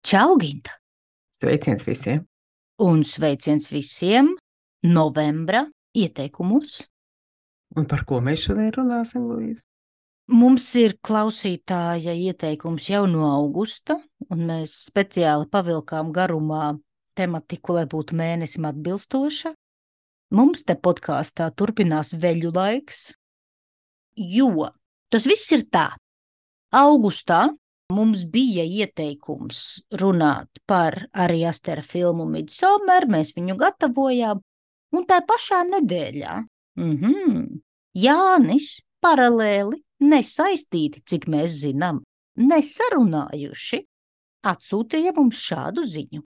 Čau, Ginta! Sveiciens visiem! Un sveiciens visiem novembra ieteikumos. Un par ko mēs šodien runāsim, Luīza? Mums ir klausītāja ieteikums jau no augusta, un mēs speciāli pavilkām garumā tematiku, lai būtu mēnesim atbilstoša. Mums te podkāstā turpinās veļu laiks, jo tas viss ir tā. Augustā mums bija ieteikums runāt par Ari Astera filmu Midsommar, mēs viņu gatavojām, un tā pašā nedēļā Jānis paralēli, nesaistīti, cik mēs zinām, nesarunājuši, atsūtīja mums šādu ziņu.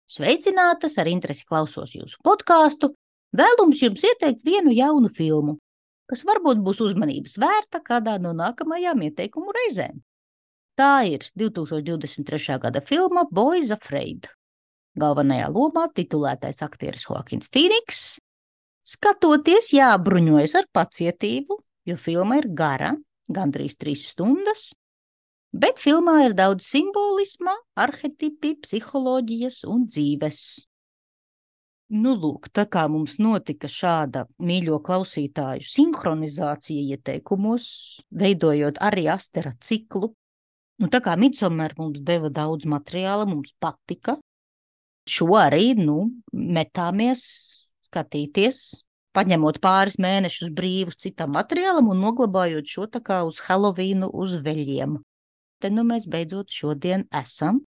Sveicinātas, ar interesi klausos jūsu podkāstu, vēlums jums ieteikt vienu jaunu filmu, kas varbūt būs uzmanības vērta kādā no nākamajām ieteikumu reizēm. Tā ir 2023. gada filma Boys Afraid. Galvenajā lomā titulētais aktieris Joaquins Phoenix. Skatoties, jābruņojas ar pacietību, jo filma ir gara, gandrīz 3 stundas, bet filmā ir daudz simbolisma, arhetipi, psiholoģijas un dzīves. Nu, lūk, tā kā mums notika šāda mīļo klausītāju sinhronizācija ieteikumos, veidojot Ari Astera ciklu, nu, tā kā Midsommar mums deva daudz materiāla, mums patika, šo arī, metāmies skatīties, paņemot pāris mēnešus brīvus citam materiālam un noglabājot šo tā kā uz Helovīnu uz veļiem. Te mēs beidzot šodien esam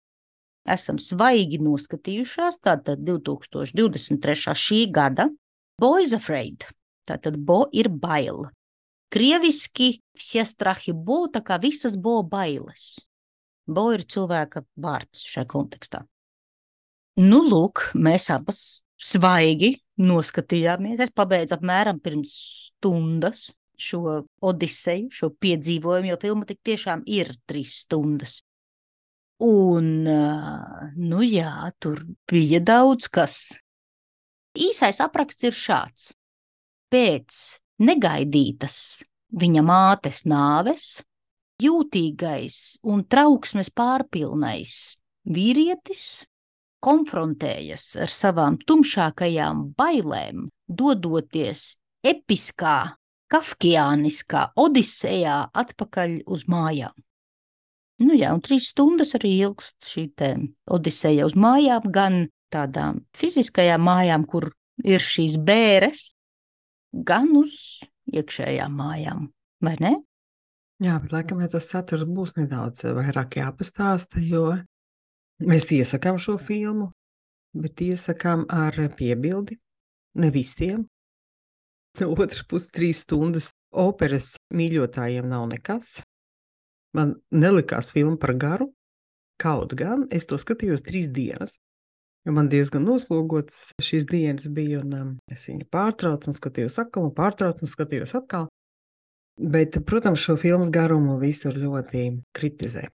svaigi noskatījušās, tātad 2023. šī gada Boys Afraid, tātad bo ir bail. Krieviski vsie strahi bo, tā kā visas bo bailes. Bo ir cilvēka vārds šajā kontekstā. Nu, lūk, mēs abas svaigi noskatījāmies. Es pabeidzu apmēram pirms stundas šo odiseju, šo piedzīvojumu, jo filma tik tiešām ir 3 stundas. Un, jā, tur bija daudz kas. Īsais apraksts ir šāds. Pēc negaidītas viņa mātes nāves jūtīgais un trauksmes pārpilnais vīrietis konfrontējas ar savām tumšākajām bailēm, dodoties episkā, kafkiāniskā odisejā atpakaļ uz mājām. Nu jā, un 3 stundas arī ilgst šī te odiseja uz mājām, gan tādām fiziskajām mājām, kur ir šīs bēres, gan uz iekšējām mājām, vai ne? Jā, bet laikam, ja tas saturs būs nedaudz vairāk jāpastāsta, jo mēs iesakām šo filmu, bet iesakām ar piebildi, ne visiem. No otras puses 3 stundas operas mīļotājiem nav nekas. Man nelikās filma par garu, kaut gan es to skatījos 3 dienas, jo man diezgan noslogots šīs dienas bija, un es viņu pārtraucu un skatījos atkal, un pārtraucu un skatījos atkal. Bet, protams, šo filmas garumu visur ļoti kritizē.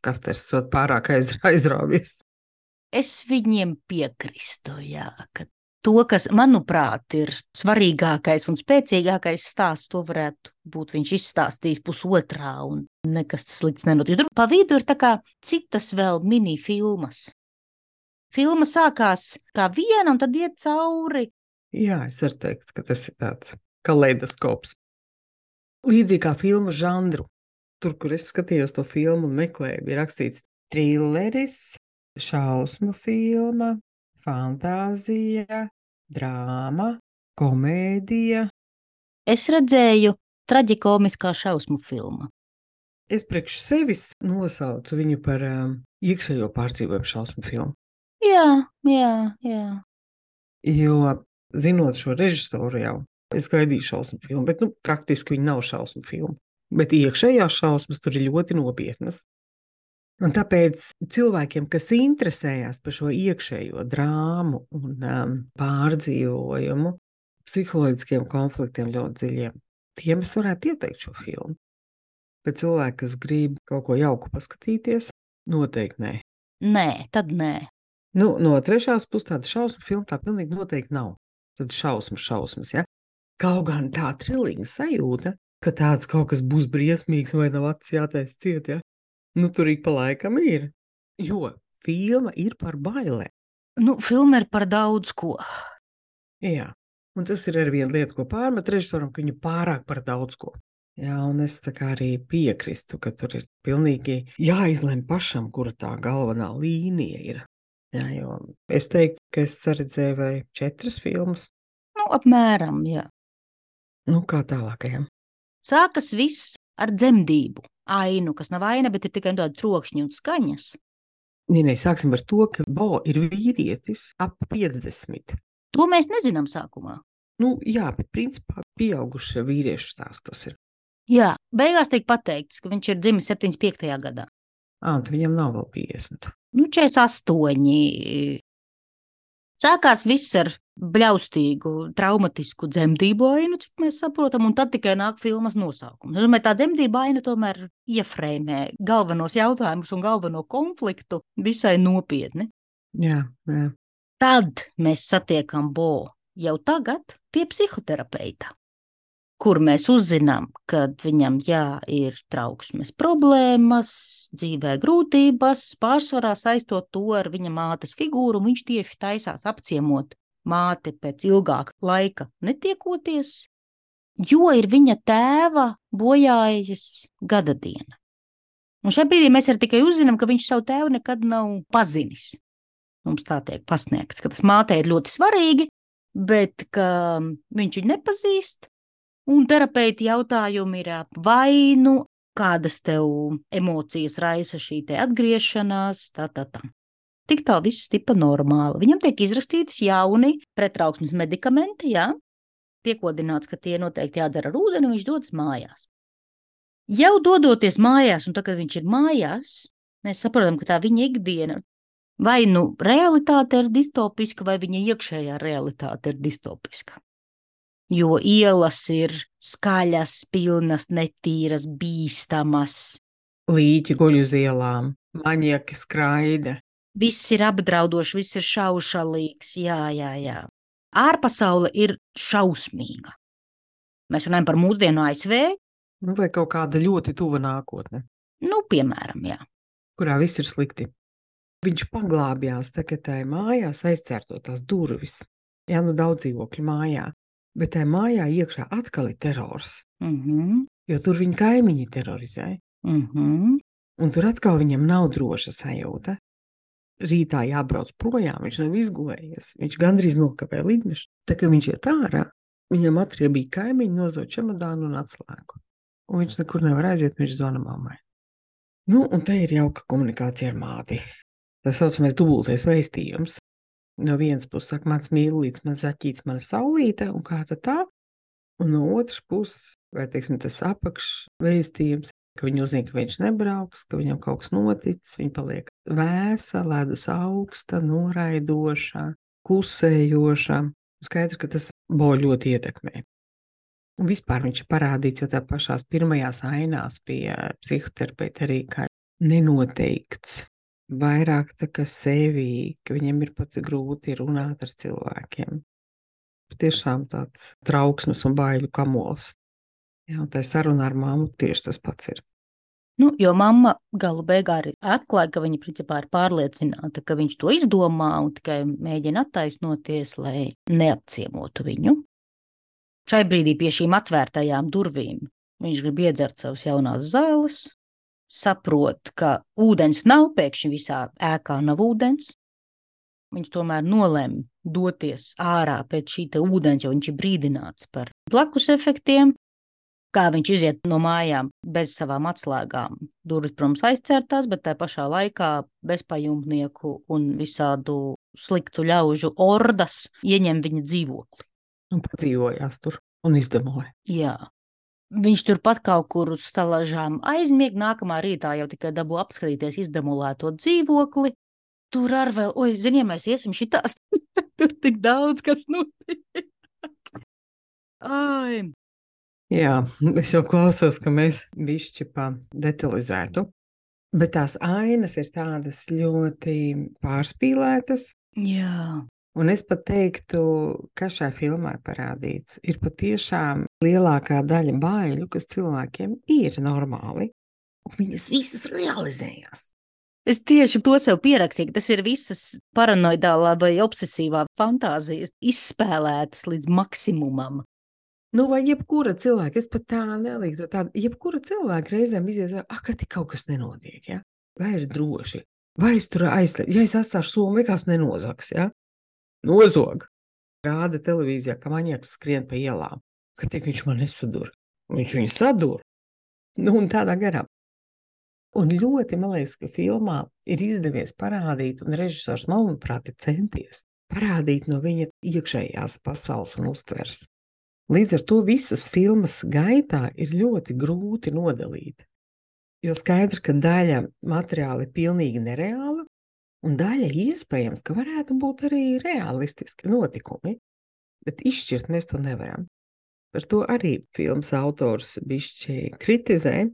Kasters sot pārāk aizrāvies. Es viņiem piekristu, jā, ka to, kas, manuprāt, ir svarīgākais un spēcīgākais stāsts, to varētu būt viņš izstāstījis pusotrā un nekas slikts nenotiek. Tur pa vidu ir tā kā citas vēl mini filmas. Filma sākās kā viena un tad iet cauri. Jā, es varu teikt, ka tas ir tāds kaleidoskops. Līdzīgi kā filmu žanru. Tur, kur es skatījos to filmu un meklēju, bija rakstīts trilleris, šausmu filma, fantāzija, drāma, komēdija. Es redzēju traģikomiskā šausmu filma. Es priekš sevis nosaucu viņu par iekšējo pārdzīvojumu šausmu filmu. Jā. Jo, zinot šo režisoru jau, es gaidīju šausmu filmu, bet, praktiski viņa nav šausmu filma. Bet iekšējās šausmas tur ir ļoti nopietnas. Un tāpēc cilvēkiem, kas interesējās par šo iekšējo drāmu un pārdzīvojumu, psiholoģiskiem konfliktiem ļoti dziļiem, tiem es varētu ieteikt šo filmu. Bet cilvēki, kas grib kaut ko jauku paskatīties, noteikti nē. Nē, tad nē. No trešās puses tāda šausmu filma tā pilnīgi noteikti nav. Tad šausmas, ja? Kaut gan tā trilīga sajūta, ka tāds kaut kas būs briesmīgs vai nav acis jātais ciet, ja? Tur ik pa laikam ir. Jo filma ir par bailēm. Nu, filma ir par daudz ko. Jā, un tas ir arī viena lieta, ko pārmet režisoram, ka viņa pārāk par daudz ko. Jā, un es tā kā arī piekristu, ka tur ir pilnīgi jāizlem pašam, kura tā galvenā līnija ir. Jā, jo es teiktu, ka es saredzēju vai 4 filmas. Nu, apmēram, jā. Nu, kā tālākajam. Sākas viss ar dzemdību ainu, kas nav aina, bet ir tikai tāda trokšņa un skaņas. Nē, sāksim ar to, ka Bo ir vīrietis ap 50. To mēs nezinām sākumā. Nu, jā, bet principā pieauguša vīriešu stāsts tas ir. Jā, beigās tiek pateikts, ka viņš ir dzimis 75. gadā. Un viņam nav vēl 50. Nu, 48. Sākās viss ar bļaustīgu, traumatisku dzemdību ainu, cik mēs saprotam, un tad tikai nāk filmas nosaukums. Es domāju, tā dzemdība aina tomēr iefrēmē galvenos jautājumus un galveno konfliktu visai nopietni. Jā. Tad mēs satiekam Bo jau tagad pie psihoterapeita, kur mēs uzzinām, ka viņam, ir trauksmes problēmas, dzīvē grūtības, pārsvarā saistot to ar viņa mātes figūru, un viņš tieši taisās apciemot māti pēc ilgāka laika netiekoties, jo ir viņa tēva bojājas gadadiena. Un šajā brīdī mēs arī tikai uzzinām, ka viņš savu tēvu nekad nav pazinis. Mums tā tiek pasniegts, ka tas mātei ir ļoti svarīgi, bet ka viņš viņu nepazīst. Un terapeiti jautājumi ir, vai nu kādas tev emocijas raisa šī te atgriešanās, tā. Tik tā viss tipa normāli. Viņam tiek izrakstītas jauni pretrauksmes medikamenti, piekodināts, ka tie noteikti jādara ar ūdeni, un viņš dodas mājās. Jau dodoties mājās, un tad, kad viņš ir mājās, mēs saprotam, ka tā viņa ikdiena vai nu realitāte ir distopiska, vai viņa iekšējā realitāte ir distopiska. Jo ielas ir skaļas, pilnas, netīras, bīstamas. Līķi guļ uz ielām, maņieki skraida. Viss ir apdraudoši, viss ir šaušalīgs, jā. Ārpasaule ir šausmīga. Mēs runājam par mūsdienu ASV. Nu, vai kaut kāda ļoti tuva nākotne. Nu, piemēram, jā. Kurā viss ir slikti. Viņš paglābjās tagad mājās, aizcērtot tās durvis. Jā, nu daudz dzīvokļu mājā. Bet tajā mājā iekšā atkal ir terors. Jo tur viņa kaimiņi terorizē. Un tur atkal viņam nav droša sajūta. Rītā jābrauc projām, viņš nav izgulējies. Viņš gandrīz nokavē lidmašīnu. Tā kā viņš iet ārā, viņam atriebīja kaimiņi, nozot čemodānu un atslēgu. Un viņš nekur nevar aiziet, viņš zvana mammai. Nu, un te ir jauka komunikācija ar māti. Tā saucamais dubultais vēstījums. No vienas puses saka, mans mīlīts, mans zaķīts, mana saulīte, un kā tad tā? Un no otras puses, vai teiksim, tas apakšvēstījums, ka viņi uzzina, ka viņš nebrauks, ka viņam kaut kas noticis, viņa paliek vēsa, ledus augsta, noraidoša, klusējoša. Skaidrs, ka tas Bo ļoti ietekmē. Un vispār viņš ir parādīts jau tā pašās pirmajās ainās pie psihoterapeita arī kā nenoteikts. Vairāk tā kā sevi, ka viņam ir pat grūti runāt ar cilvēkiem. Tiešām tāds trauksmes un baiļu kamols. Jā, un tā saruna ar mammu tieši tas pats ir. Nu, jo mamma galu beigā arī atklāja, ka viņa principā ir pārliecināta, ka viņš to izdomā un tikai mēģina attaisnoties, lai neapciemotu viņu. Šai brīdī pie šīm atvērtajām durvīm viņš grib iedzert savas jaunās zāles, saprot, ka ūdens nav, pēkšņi visā ēkā nav ūdens. Viņš tomēr nolēma doties ārā pēc šī te ūdens, jo viņš ir brīdināts par blakus efektiem. Kā viņš iziet no mājām bez savām atslēgām. Durvis, protams, aizcērtās, bet tā pašā laikā bezpajumtnieku un visādu sliktu ļaužu ordas ieņem viņa dzīvokli. Un padzīvojās tur un izdemoja. Jā. Viņš turpat kaut kur uz stalažām aizmieg, nākamā rītā jau tikai dabū apskatīties izdemolēto dzīvokli. Tur ar vēl, zini, ja mēs iesim šitās, tur tik daudz, kas notiek. Jā, es jau klausos, ka mēs bišķi pa detalizētu, bet tās ainas ir tādas ļoti pārspīlētas. Jā. Un es pat teiktu, ka šajā filmā parādīts ir patiešām lielākā daļa baiļu, kas cilvēkiem ir normāli, un viņas visas realizējās. Es tieši to sev pierakstīju, tas ir visas paranoidālā vai obsesīvā fantāzijas izspēlētas līdz maksimumam. Nu, vai jebkura cilvēka, es pat tā neliktu tādu, jebkura cilvēka reizēm izies, ka tik kaut kas nenotiek, ja? Vai ir droši, vai es tur aizslēdzu, ja es atstāšu somu, vai kāds nenozags, ja? Nozog. Rāda televīzijā, ka maņiaks skrien pa ielām, ka tik viņš man nesadur. Viņš viņu sadur. Nu, un tādā garā. Un ļoti, man liekas, ka filmā ir izdevies parādīt, un režisors, manuprāt, ir centies parādīt no viņa iekšējās pasaules un uztvers. Līdz ar to visas filmas gaitā ir ļoti grūti nodalīt. Jo skaidrs, ka daļa materiāla ir pilnīgi nereāla, un daļa iespējams, ka varētu būt arī realistiski notikumi, bet izšķirt mēs to nevaram. Par to arī filmas autors bišķi kritizē,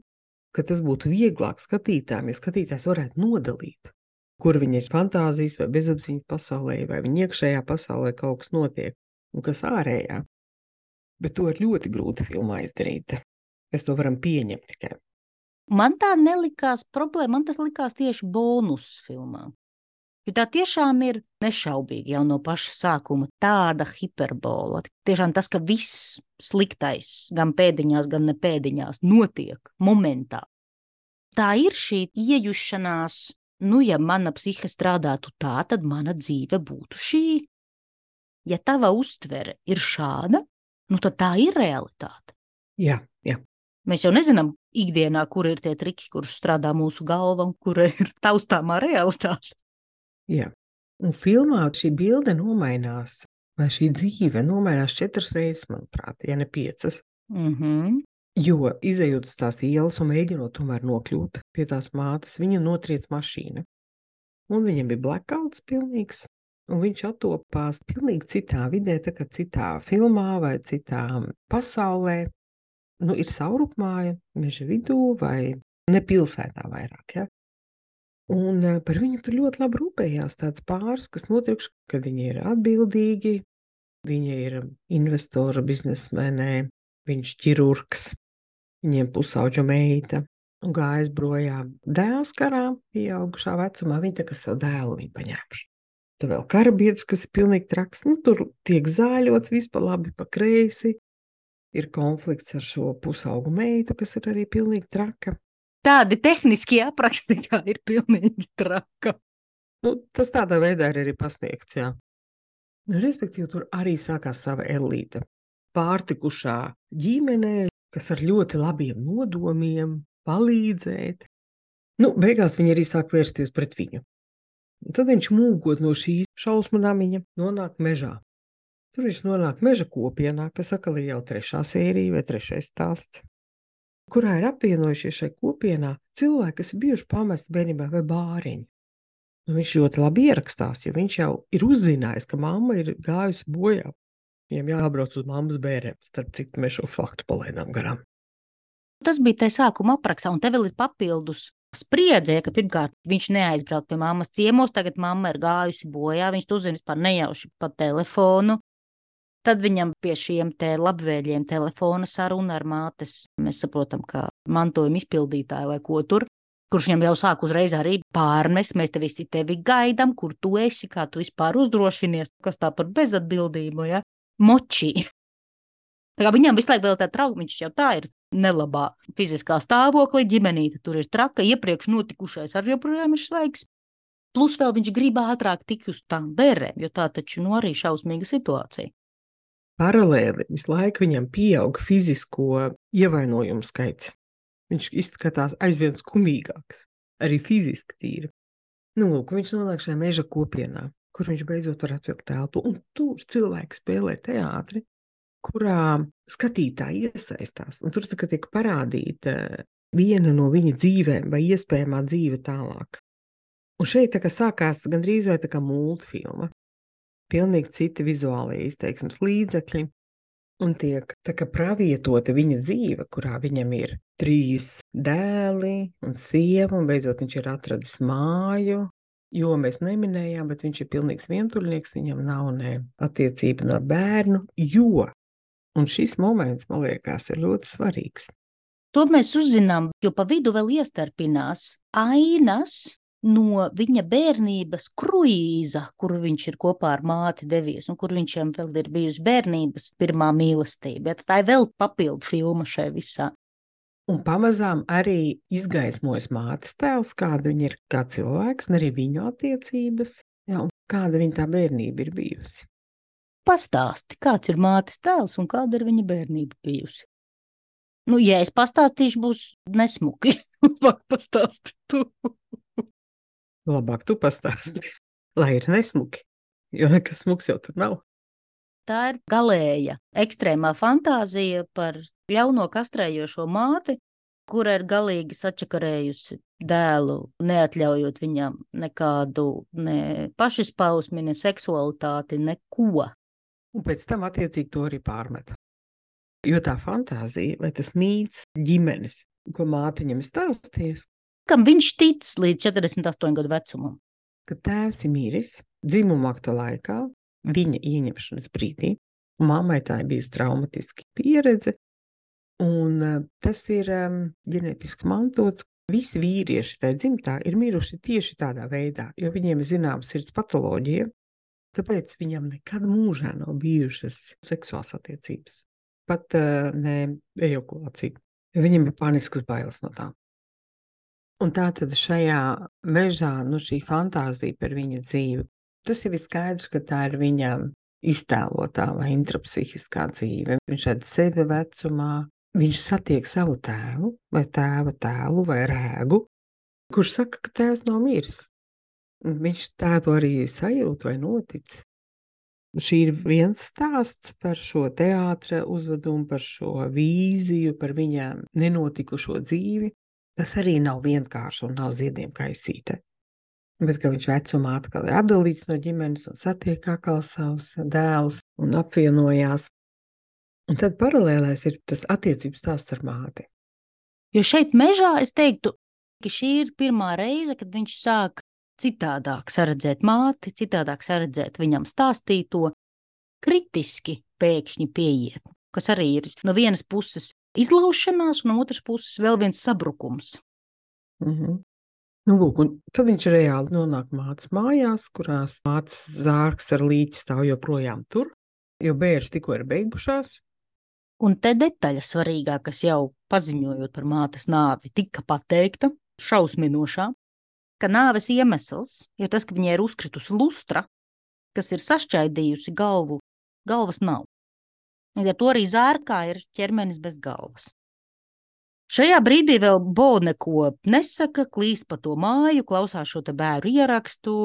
ka tas būtu vieglāk skatītājiem, ja skatītājs varētu nodalīt, kur viņa ir fantāzijas vai bezapziņas pasaulē, vai viņa iekšējā pasaulē kaut kas notiek, un kas ārējā. Bet to ir ļoti grūti filmā izdarīt. Mēs to varam pieņemt tikai. Man tā nelikās problēma, man tas likās tieši bonus filmā. Jo tā tiešām ir nešaubīgi jau no paša sākuma tāda hiperbola. Tiešām tas, ka viss sliktais, gan pēdiņās, gan ne pēdiņās, notiek momentā. Tā ir šī iejušanās, ja mana psihe strādātu tā, tad mana dzīve būtu šī. Ja tava uztvere ir šāda, tad tā ir realitāte. Jā. Mēs jau nezinām ikdienā, kur ir tie triki, kurus strādā mūsu galva un kur ir taustāmā realitāte. Jā. Un filmā šī bilde nomainās, vai šī dzīve nomainās 4 reizes, manuprāt, ja ne 5. Jo izejot uz tās ielas un mēģinot tomēr nokļūt pie tās mātes, viņa notriec mašīna. Un viņam bija blackouts pilnīgs. Un viņš attopās pilnīgi citā vidē, tā kā citā filmā vai citā pasaulē. Ir saurupmāja, meža vidū vai ne pilsētā vairāk, ja? Un par viņu tur ļoti labi rūpējās tāds pāris, kas notiekš, ka viņi ir atbildīgi, viņi ir investora biznesmenē, viņš ķirurgs, viņiem pusauģa meita un gājas brojām dēls karā, pieaugušā vecumā, viņi tā kā savu dēlu viņu paņēmuši. Tad vēl karabiedrs, kas ir pilnīgi traks, tur tiek zāļots vispār labi pa kreisi, ir konflikts ar šo pusaugu meitu, kas ir arī pilnīgi traka. Tādi tehniski apraksti, kā ir pilnīgi traka. Tas tādā veidā ir arī pasniegts, jā. Respektīvi, tur arī sākās sava elīte. Pārtikušā ģimenē, kas ar ļoti labiem nodomiem palīdzēt. Beigās viņi arī sāk vērsties pret viņu. Un tad viņš mūgot no šīs šausmu namiņa nonāk mežā. Tur viņš nonāk meža kopienā, kas atkal ir jau 3. sērija vai 3. stāsts, kurā ir apvienojušies šai kopienā cilvēki, kas ir bijuši pamesti bērnībā vai bāriņi. Viņš ļoti labi ierakstās, jo viņš jau ir uzzinājis, ka mamma ir gājusi bojā. Viņam jābrauc uz mammas bērēm, starp citu mēs šo faktu palaidām garām. Tas bija tajā sākuma aprakstā, un te vēl ir papildus spriedzē, ka pirmkārt viņš neaizbrauc pie mammas ciemos, tagad mamma ir gājusi bojā, viņš to uzzina vispār nejauši pa telefonu. Tad viņam pie šiem te labvēļiem telefona saruna ar mātes, mēs saprotam, ka mantojuma izpildītāju vai ko tur, kurš viņam jau sāk uzreiz arī pārmest, mēs te visi tevi gaidam, kur tu esi, kā tu vispār uzdrošinies, kas tā par bezatbildību, ja? Moči. Tā kā viņam visu laiku vēl tā trauka, viņš jau tā ir nelabā fiziskā stāvoklī, ģimenīte tur ir traka, iepriekš notikušais arī joprojām ir svaigs. Plus vēl viņš grib ātrāk tikt uz tām bērēm, jo tā taču arī šausmīga situācija. Paralēli visu laiku viņam pieaug fizisko ievainojumu skaits. Viņš izskatās aizvien skumīgāks, arī fiziski tīri. Viņš nonāk šajā meža kopienā, kur viņš beidzot var atvilkt telpu, un tur cilvēki spēlē teātri, kurā skatītāji iesaistās, un tur tiek parādīta viena no viņa dzīvēm vai iespējamā dzīve tālāk. Un šeit tā kā sākās gandrīz vai tā kā multfilma. Pilnīgi citi vizuālie izteiksmes līdzekļi, un tiek tā kā pravietota viņa dzīve, kurā viņam ir 3 dēli un sieva, un beidzot viņš ir atradis māju, jo mēs neminējām, bet viņš ir pilnīgs vientuļnieks, viņam nav ne attiecība no bērnu, jo, un šis moments, man liekas, ir ļoti svarīgs. To mēs uzzinām, jo pa vidu vēl iestarpinās ainas no viņa bērnības kruīza, kuru viņš ir kopā ar māti devies, un kur viņam vēl ir bijusi bērnības pirmā mīlestība. Ja, tā ir vēl papildu filma šai visā. Un pamazām arī izgaismojas mātes tēls, kāda viņa ir kā cilvēks, un arī viņu attiecības, ja, un kāda viņa tā bērnība ir bijusi. Pastāsti, kāds ir mātes tēls un kāda ir viņa bērnība bijusi? Nu, ja es pastāstīšu, būs nesmuki. Labāk pastāsti tu. Labāk tu pastāsti, lai ir nesmuki, jo nekas smuks jau tur nav. Tā ir galēja, ekstrēmā fantāzija par ļauno kastrējošo māti, kura ir galīgi sačakarējusi dēlu, neatļaujot viņam nekādu ne pašizpausmi, ne seksualitāti, neko. Un pēc tam attiecīgi to arī pārmet. Jo tā fantāzija, vai tas mīts ģimenes, ko māte viņam stāsties, Kam viņš tic līdz 48 gadu vecumam? ka tēvs ir miris dzimuma akta laikā, viņa ieņemšanas brīdī, un mammai tā ir bijusi traumatiska pieredze, un tas ir ģenētiski mantots. Visi vīrieši tajā dzimtā ir miruši tieši tādā veidā, jo viņiem ir zināma sirds patoloģija, tāpēc viņam nekad mūžā nav bijušas seksuālas attiecības, pat ne ejakulācija. Viņam ir paniskas bailes no tā. Un tā tad šajā mežā, šī fantāzija par viņa dzīvi, tas jau ir skaidrs, ka tā ir viņa iztēlotā vai intrapsihiskā dzīve. Viņš redz sevi vecumā, viņš satiek savu tēvu vai tēva tēlu vai rēgu, kurš saka, ka tēvs nav miris. Viņš tā to arī sajūt vai notic. Šī ir viens stāsts par šo teātra uzvedumu, par šo vīziju, par viņa nenotikušo dzīvi. Tas arī nav vienkārši un nav ziediem kaisīte. Bet, ka viņš vecumā atkal ir atdalīts no ģimenes un satiek atkal savus dēlus un apvienojās. Un tad paralēlēs ir tas attiecības stāsts ar māti. Jo šeit mežā es teiktu, ka šī ir pirmā reize, kad viņš sāk citādāk saredzēt māti, citādāk saredzēt viņam stāstīto, kritiski pēkšņi pieiet, kas arī ir no vienas puses izlaušanās, un no otras puses vēl viens sabrukums. Lūk, un tad viņš reāli nonāk mātes mājās, kurās mātes zārks ar līķi stāv joprojām tur, jo bēres tikko ir beigušās. Un te detaļa svarīgā, kas jau paziņojot par mātes nāvi tika pateikta, šausminošā, ka nāves iemesls ir tas, ka viņai ir uzkritusi lustra, kas ir sašķaidījusi galvu, galvas nav. Līdz ar to arī zārkā ir ķermenis bez galvas. Šajā brīdī vēl Bo neko nesaka, klīst pa to māju, klausās šo te bēru ierakstu,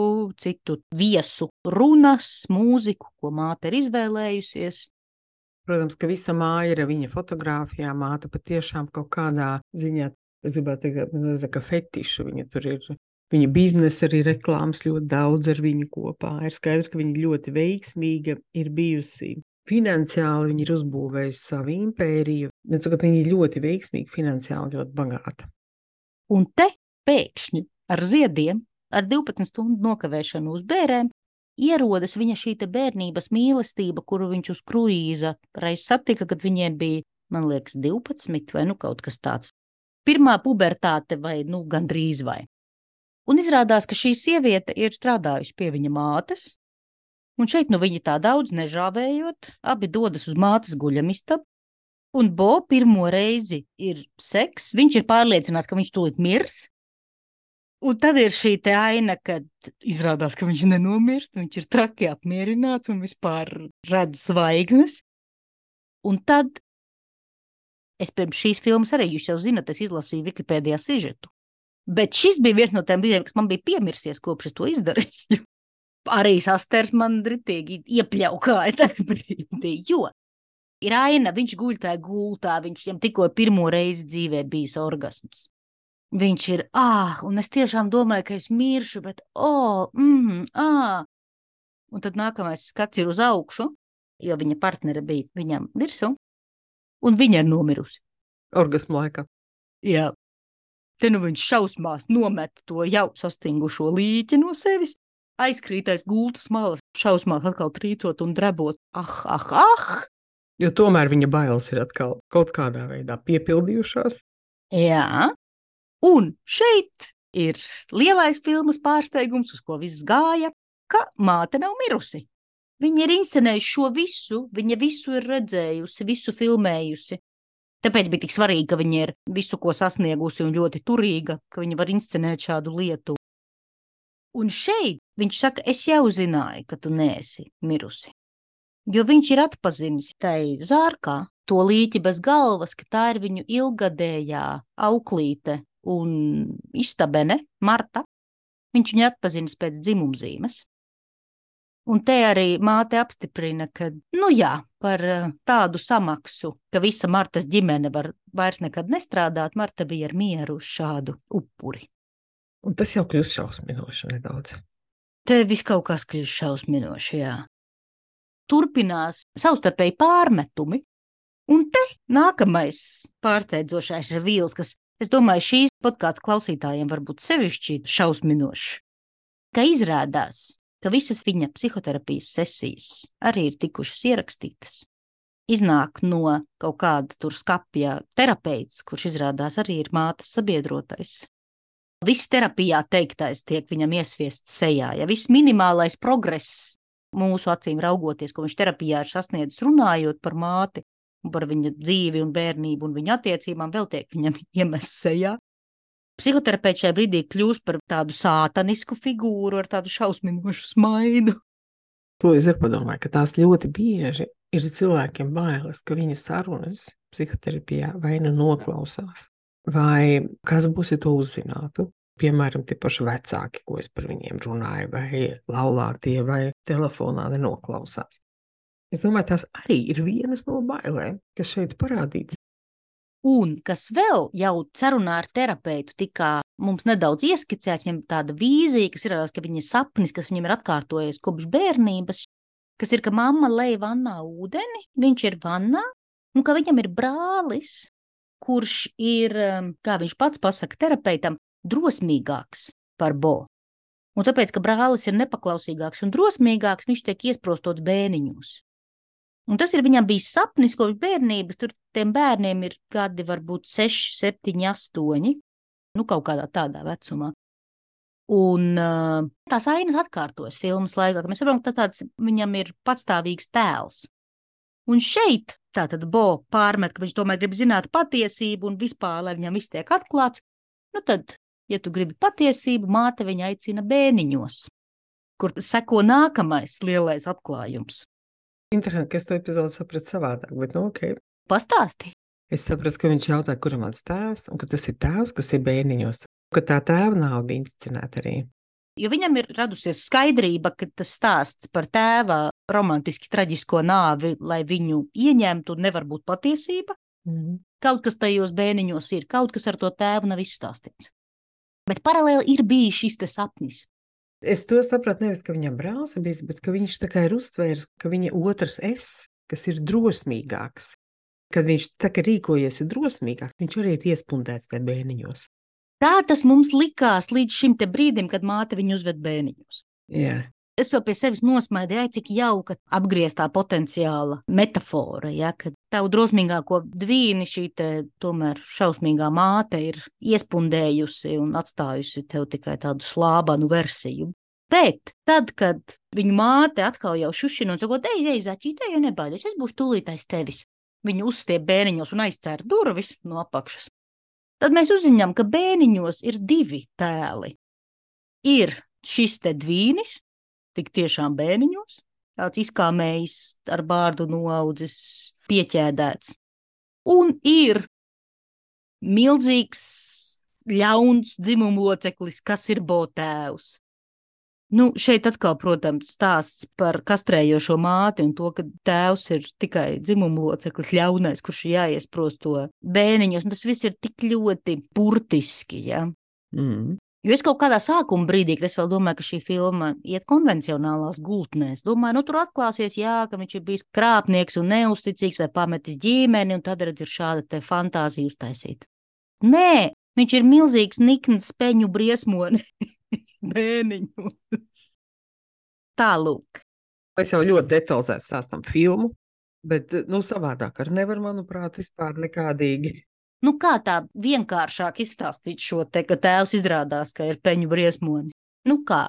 citu viesu runas, mūziku, ko māte ir izvēlējusies. Protams, ka visa māja ir viņa fotogrāfijā, māte patiešām kaut kādā ziņā, es gribētu teikt, ka fetišu viņa tur ir. Viņa biznesa arī reklāmas ļoti daudz ar viņu kopā. Ir skaidrs, ka viņa ļoti veiksmīga ir bijusi. Finansiāli viņa ir uzbūvējusi savu impēriju. Viņa ir ļoti veiksmīga, finansiāli ļoti bagāta. Un te pēkšņi ar ziediem, ar 12 stundu nokavēšanu uz bērēm, ierodas viņa šī te bērnības mīlestība, kuru viņš uz kruīza reiz satika, kad viņiem bija, man liekas, 12 vai kaut kas tāds. Pirmā pubertāte vai gandrīz vai. Un izrādās, ka šī sieviete ir strādājusi pie viņa mātes, un šeit viņi tā daudz nežāvējot, abi dodas uz mātes guļamistabu, un Bo pirmo reizi ir seks, viņš ir pārliecināts, ka viņš tūlīt mirs, un tad ir šī te aina, kad izrādās, ka viņš nenomirst, viņš ir traki apmierināts un vispār redz zvaigznes, un tad es pirms šīs filmas arī, jūs jau zinat, es izlasīju Wikipēdijā sižetu, bet šis bija viens no tiem brīdiem, kas man bija piemirsies, kopš es to izdarīju. Arī sasters man dritīgi iepļaukāja tajā brīdī, jo ir aina, viņš guļ tajā gultā, viņam tikko pirmo reizi dzīvē bijis orgasms. Viņš ir, un es tiešām domāju, ka es miršu, bet, Un tad nākamais skats ir uz augšu, jo viņa partnere bija viņam virsū, un viņa ir nomirusi. Orgasmu laikā. Jā. Te viņš šausmās nomet to jau sastingušo līķi no sevis, aizkrītais gultas malas, šausmās atkal trīcot un drebot. Jo tomēr viņa bailes ir atkal kaut kādā veidā piepildījušās. Jā, un šeit ir lielais filmas pārsteigums, uz ko viss gāja, ka māte nav mirusi. Viņa ir inscenējusi šo visu, viņa visu ir redzējusi, visu filmējusi. Tāpēc bija tik svarīgi, ka viņa ir visu, ko sasniegusi un ļoti turīga, ka viņa var inscenēt šādu lietu. Un šeit viņš saka, es jau zināju, ka tu neesi mirusi. Jo viņš ir atpazinis tai zārkā to līķi bez galvas, ka tā ir viņu ilgadējā auklīte un istabene, Marta. Viņš viņu atpazinis pēc dzimumzīmes. Un te arī māte apstiprina, ka, par tādu samaksu, ka visa Martas ģimene var vairs nekad nestrādāt, Marta bija ar mieru uz šādu upuri. Un tas jau kļūst šausminoši nedaudz. Te viss kaut kas kļūst šausminoši, jā. Turpinās savstarpēji pārmetumi, un te nākamais pārsteidzošais revīls, kas, es domāju, šīs podkāstu klausītājiem var būt sevišķi šausminošs, ka izrādās, ka visas viņa psihoterapijas sesijas arī ir tikušas ierakstītas. Iznāk no kaut kāda tur skapja terapeits, kurš izrādās arī ir mātes sabiedrotais. Viss terapijā teiktais tiek viņam iesviests sejā, ja viss minimālais progress mūsu acīm raugoties, ko viņš terapijā ir sasniedzis runājot par māti un par viņa dzīvi un bērnību un viņa attiecībām, vēl tiek viņam iemests sejā. Psihoterapeits šajā brīdī kļūst par tādu sātanisku figūru ar tādu šausminošu smaidu. To es arī padomāju, ka tās ļoti bieži ir cilvēkiem bailes, ka viņu sarunas psihoterapijā vai nu noklausās, vai kas būs, ja to uzzinātu. Piemēram, tie paši vecāki, ko es par viņiem runāju, vai laulātie, vai telefonā nenoklausās. Es domāju, tās arī ir vienas no bailēm, kas šeit parādīts. Un kas vēl jau sarunā ar terapeitu tika mums nedaudz ieskicēts, viņam tāda vīzija, kas ir, ka viņa sapnis, kas viņam ir atkārtojies kopš bērnības, kas ir, ka mamma lej vannā ūdeni, viņš ir vannā, un ka viņam ir brālis, kurš ir, kā viņš pats pasaka terapeitam, drosmīgāks par Bo. Un tāpēc, ka brālis ir nepaklausīgāks un drosmīgāks, viņš tiek iesprostots bēniņos. Un tas ir viņam bijis sapnis kopš bērnības, tur tiem bērniem ir gadi varbūt 6, 7, 8, kaut kādā tādā vecumā. Un tās ainas atkārtojas filmas laikā, ka mēs saprotam, ka tāds viņam ir patstāvīgs tēls. Un šeit tātad Bo pārmet, ka viņš tomēr grib zināt patiesību un vispār, lai viņam viss tiek atklāts. Tad, ja tu gribi patiesību, māte viņa aicina bēniņos, kur seko nākamais lielais atklājums. Interesanti, ka es to epizodu sapratu savādāk, bet ok. Pastāsti. Es sapratu, ka viņš jautā, kuram mans tēvs, un ka tas ir tēvs, kas ir bērniņos, ka tā tēva nav bija inscenēta arī. Jo viņam ir radusies skaidrība, ka tas stāsts par tēva romantiski traģisko nāvi, lai viņu ieņemtu, nevar būt patiesība. Kaut kas tajos bērniņos ir, kaut kas ar to tēvu nav izstāstīts. Bet paralēli ir bijis šis te sapnis. Es to sapratu nevis, ka viņam brālis ir bijis, bet ka viņš tā kā ir uztvērs, ka viņa otrs es, kas ir drosmīgāks, kad viņš tā kā rīkojies ir drosmīgāks, viņš arī ir iespundēts te bērniņos. Tā tas mums likās līdz šim te brīdim, kad māte viņu uzved bērniņos. Jā. Es jau pie sevis nosmaidīju, cik jauka apgrieztā potenciāla metafora, ja, ka tavu drosmīgāko dvīni šī te tomēr šausmīgā māte ir iespundējusi un atstājusi tev tikai tādu slābanu versiju. Bet tad, kad viņu māte atkal jau šušina un sakot, ej, zaķīt, ej, nebaidies, es būšu tūlīt aiz tevis. Viņu uzstiep bēniņos un aizcer durvis no apakšas. Tad mēs uzziņām, ka bēniņos ir 2 tēli. Ir šis te dvīnis, tik tiešām bēniņos, tāds izkāmējis ar bārdu noaudzis, pieķēdēts. Un ir milzīgs, ļauns dzimumloceklis, kas ir Bo tēvs. Šeit atkal, protams, stāsts par kastrējošo māti un to, ka tēvs ir tikai dzimumloceklis ļaunais, kurš jāiesprost to bēniņos. Un tas viss ir tik ļoti burtiski, ja? Jo es kaut kādā sākuma brīdī, kad es vēl domāju, ka šī filma iet konvencionālās gultnēs, domāju, tur atklāsies, ka viņš ir bijis krāpnieks un neusticīgs vai pametis ģimeni, un tad redz ir šāda te fantāzija uztaisīta. Nē, viņš ir milzīgs nikns speņu briesmoni bēniņos. Tālūk. Es jau ļoti detalizēti stāstam filmu, bet, savādāk ar nevar, manuprāt, vispār nekādīgi Nu, kā tā vienkāršāk izstāstīt šo te, ka tēvs izrādās, ka ir peņu briesmonis? Nu, kā?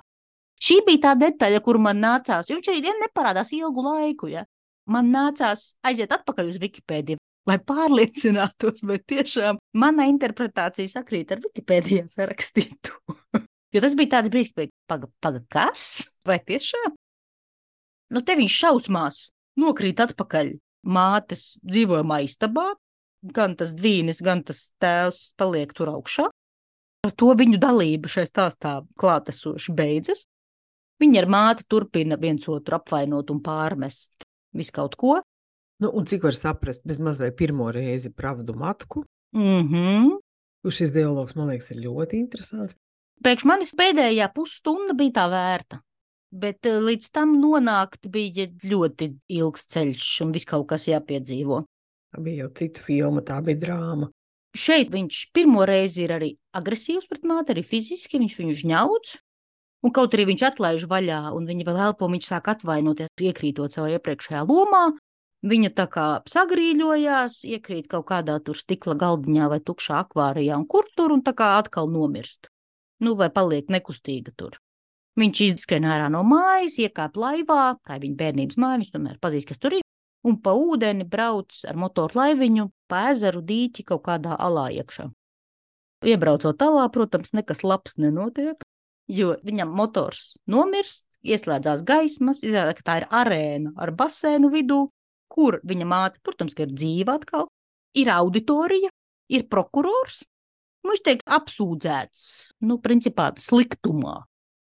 Šī bija tā detaļa, kur man nācās, jo viņš arī neparādās ilgu laiku, ja? Man nācās aiziet atpakaļ uz Wikipēdiju, lai pārliecinātos, vai tiešām mana interpretācija sakrīt ar Wikipēdijā sarakstītu. Jo tas bija tāds brīdis, ka paga, kas? Vai tiešām? Nu, te viņš šausmās nokrīt atpakaļ mātes dzīvojamā istabā, gan tas dvīnis, gan tas tēvs paliek tur augšā. Ar to viņu dalība šai stāstā klātesoši beidzas. Viņi ar māti turpina viens otru apvainot un pārmest visu kaut ko. Nu, un cik var saprast, bezmaz vai pirmo reizi pravdu matku? Šis dialogs, man liekas, ir ļoti interesants. Priekš manis pēdējā pusstunda bija tā vērta, bet līdz tam nonākt bija ļoti ilgs ceļš un viss kaut kas jāpiedzīvo. Tā bija jau cita filma, tā bija drāma. Šeit viņš pirmo reizi ir arī agresīvs pret māti, arī fiziski viņš viņu žņauc. Un kaut arī viņš atlaiž vaļā, un viņa vēl elpo, viņš sāk atvainoties, iekrītot savā iepriekšējā lomā. Viņa tā kā sagrīļojās, iekrīt kaut kādā tur stikla galdiņā vai tukšā akvārijā, un kur tur, un tā kā atkal nomirst. Nu, vai paliek nekustīga tur. Viņš izskrien ārā no mājas, iekāp laivā, tā ir viņa bērnības māja, viņš tomēr pazīst, kas tur ir, un pa ūdeni brauc ar motoru laiviņu, pa ezeru dīķi kaut kādā alā iekšā. Iebraucot alā, protams, nekas labs nenotiek. Jo viņam motors nomirst, ieslēdzās gaismas, izrādās, ka tā ir arēna ar basēnu vidū, kur viņa māte, protams, ka ir dzīva atkal, ir auditorija, ir prokurors, viņš tiek apsūdzēts, nu, principā, sliktumā.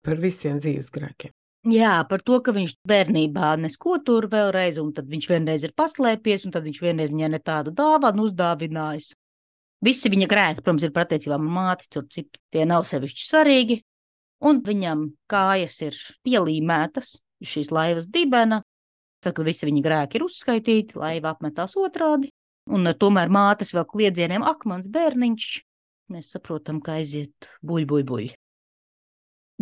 Par visiem dzīves grēkiem. Jā, par to, ka viņš bērnībā nesko tur vēlreiz, un tad viņš vienreiz ir paslēpies, un tad viņš vienreiz viņai ne tādu dāvanu uzdāvinājis. Visi viņa grēki, protams, ir par attiecībām ar māti, tur citu, tie nav sevišķi svarīgi. Un viņam kājas ir pielīmētas šīs laivas dibena. Tad, kad visi viņa grēki ir uzskaitīti, laiva apmetās otrādi. Un tomēr mātes vēl kliedzieniem mans bērniņš. Mēs saprotam, ka aiziet buļ.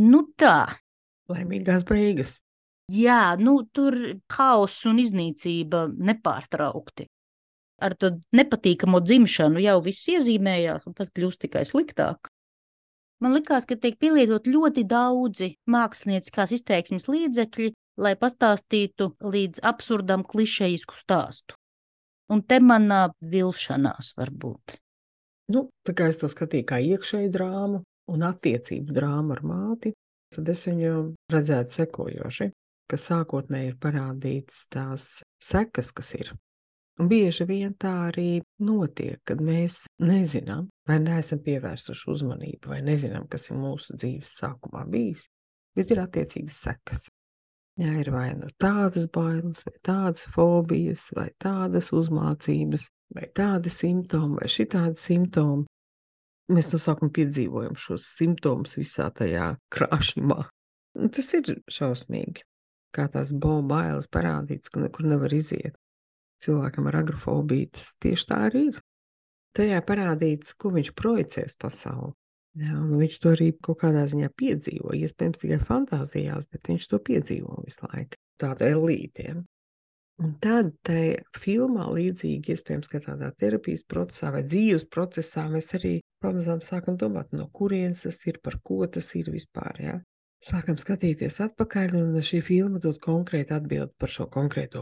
Nu tā. Laimīgās beigas. Jā, nu tur haoss un iznīcība nepārtraukti. Ar to nepatīkamo dzimšanu jau viss iezīmējās, un tad kļūst tikai sliktāk. Man likās, ka tiek pielietot ļoti daudzi mākslinieckās izteiksmes līdzekļi, lai pastāstītu līdz absurdam klišejisku stāstu. Un te manā vilšanās varbūt. Nu, tā kā es to skatīju kā iekšēju drāmu un attiecību drāmu ar māti, tad es viņu redzētu sekojoši, ka sākotnēji ir parādīts tās sekas, kas ir. Un bieži vien tā arī notiek, kad mēs nezinām, vai neesam pievērsuši uzmanību, vai nezinām, kas ir mūsu dzīves sākumā bijis, bet ir attiecīgas sekas. Jā, ir vai nu tādas bailes, vai tādas fobijas, vai tādas uzmācības, vai tādi simptomi, vai šitādi simptomi. Mēs no sākuma piedzīvojam šos simptomus visā tajā krāšņumā. Un tas ir šausmīgi, kā tās bailes parādīts, ka nekur nevar iziet. Cilvēkam ar agrofobiju tas tieši tā arī ir. Tajā parādīts, ko viņš projicēs pasauli. Jā, un viņš to arī kaut kādā ziņā piedzīvo, iespējams tikai fantāzijās, bet viņš to piedzīvo visu laiku. Tāda elītiem. Un tad tajā filmā līdzīgi, iespējams, ka tādā terapijas procesā vai dzīves procesā mēs arī pamazām sākam domāt, no kurienes tas ir, par ko tas ir vispār, jā. Sākam skatīties atpakaļ, un šī filma dod konkrēti atbildi par šo konkrēto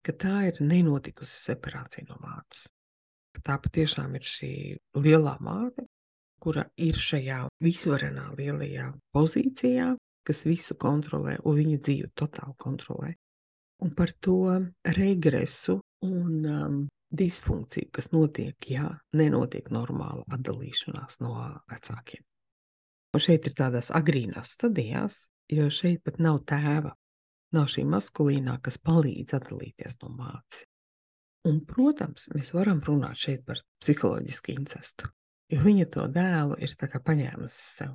ka tā ir nenotikusi separācija no mātes. Tā patiešām ir šī lielā māte, kura ir šajā visvarenā lielajā pozīcijā, kas visu kontrolē un viņa dzīvi totāli kontrolē. Un par to regresu un disfunkciju, kas notiek, ja nenotiek normāla atdalīšanās no vecākiem. Un šeit ir tādās agrīnās stadijās, jo šeit pat nav tēva. Nav šī maskulīnā, kas palīdz atdalīties no mātes. Un, protams, mēs varam runāt šeit par psiholoģisku incestu, jo viņa to dēlu ir tā kā paņēmusi sev.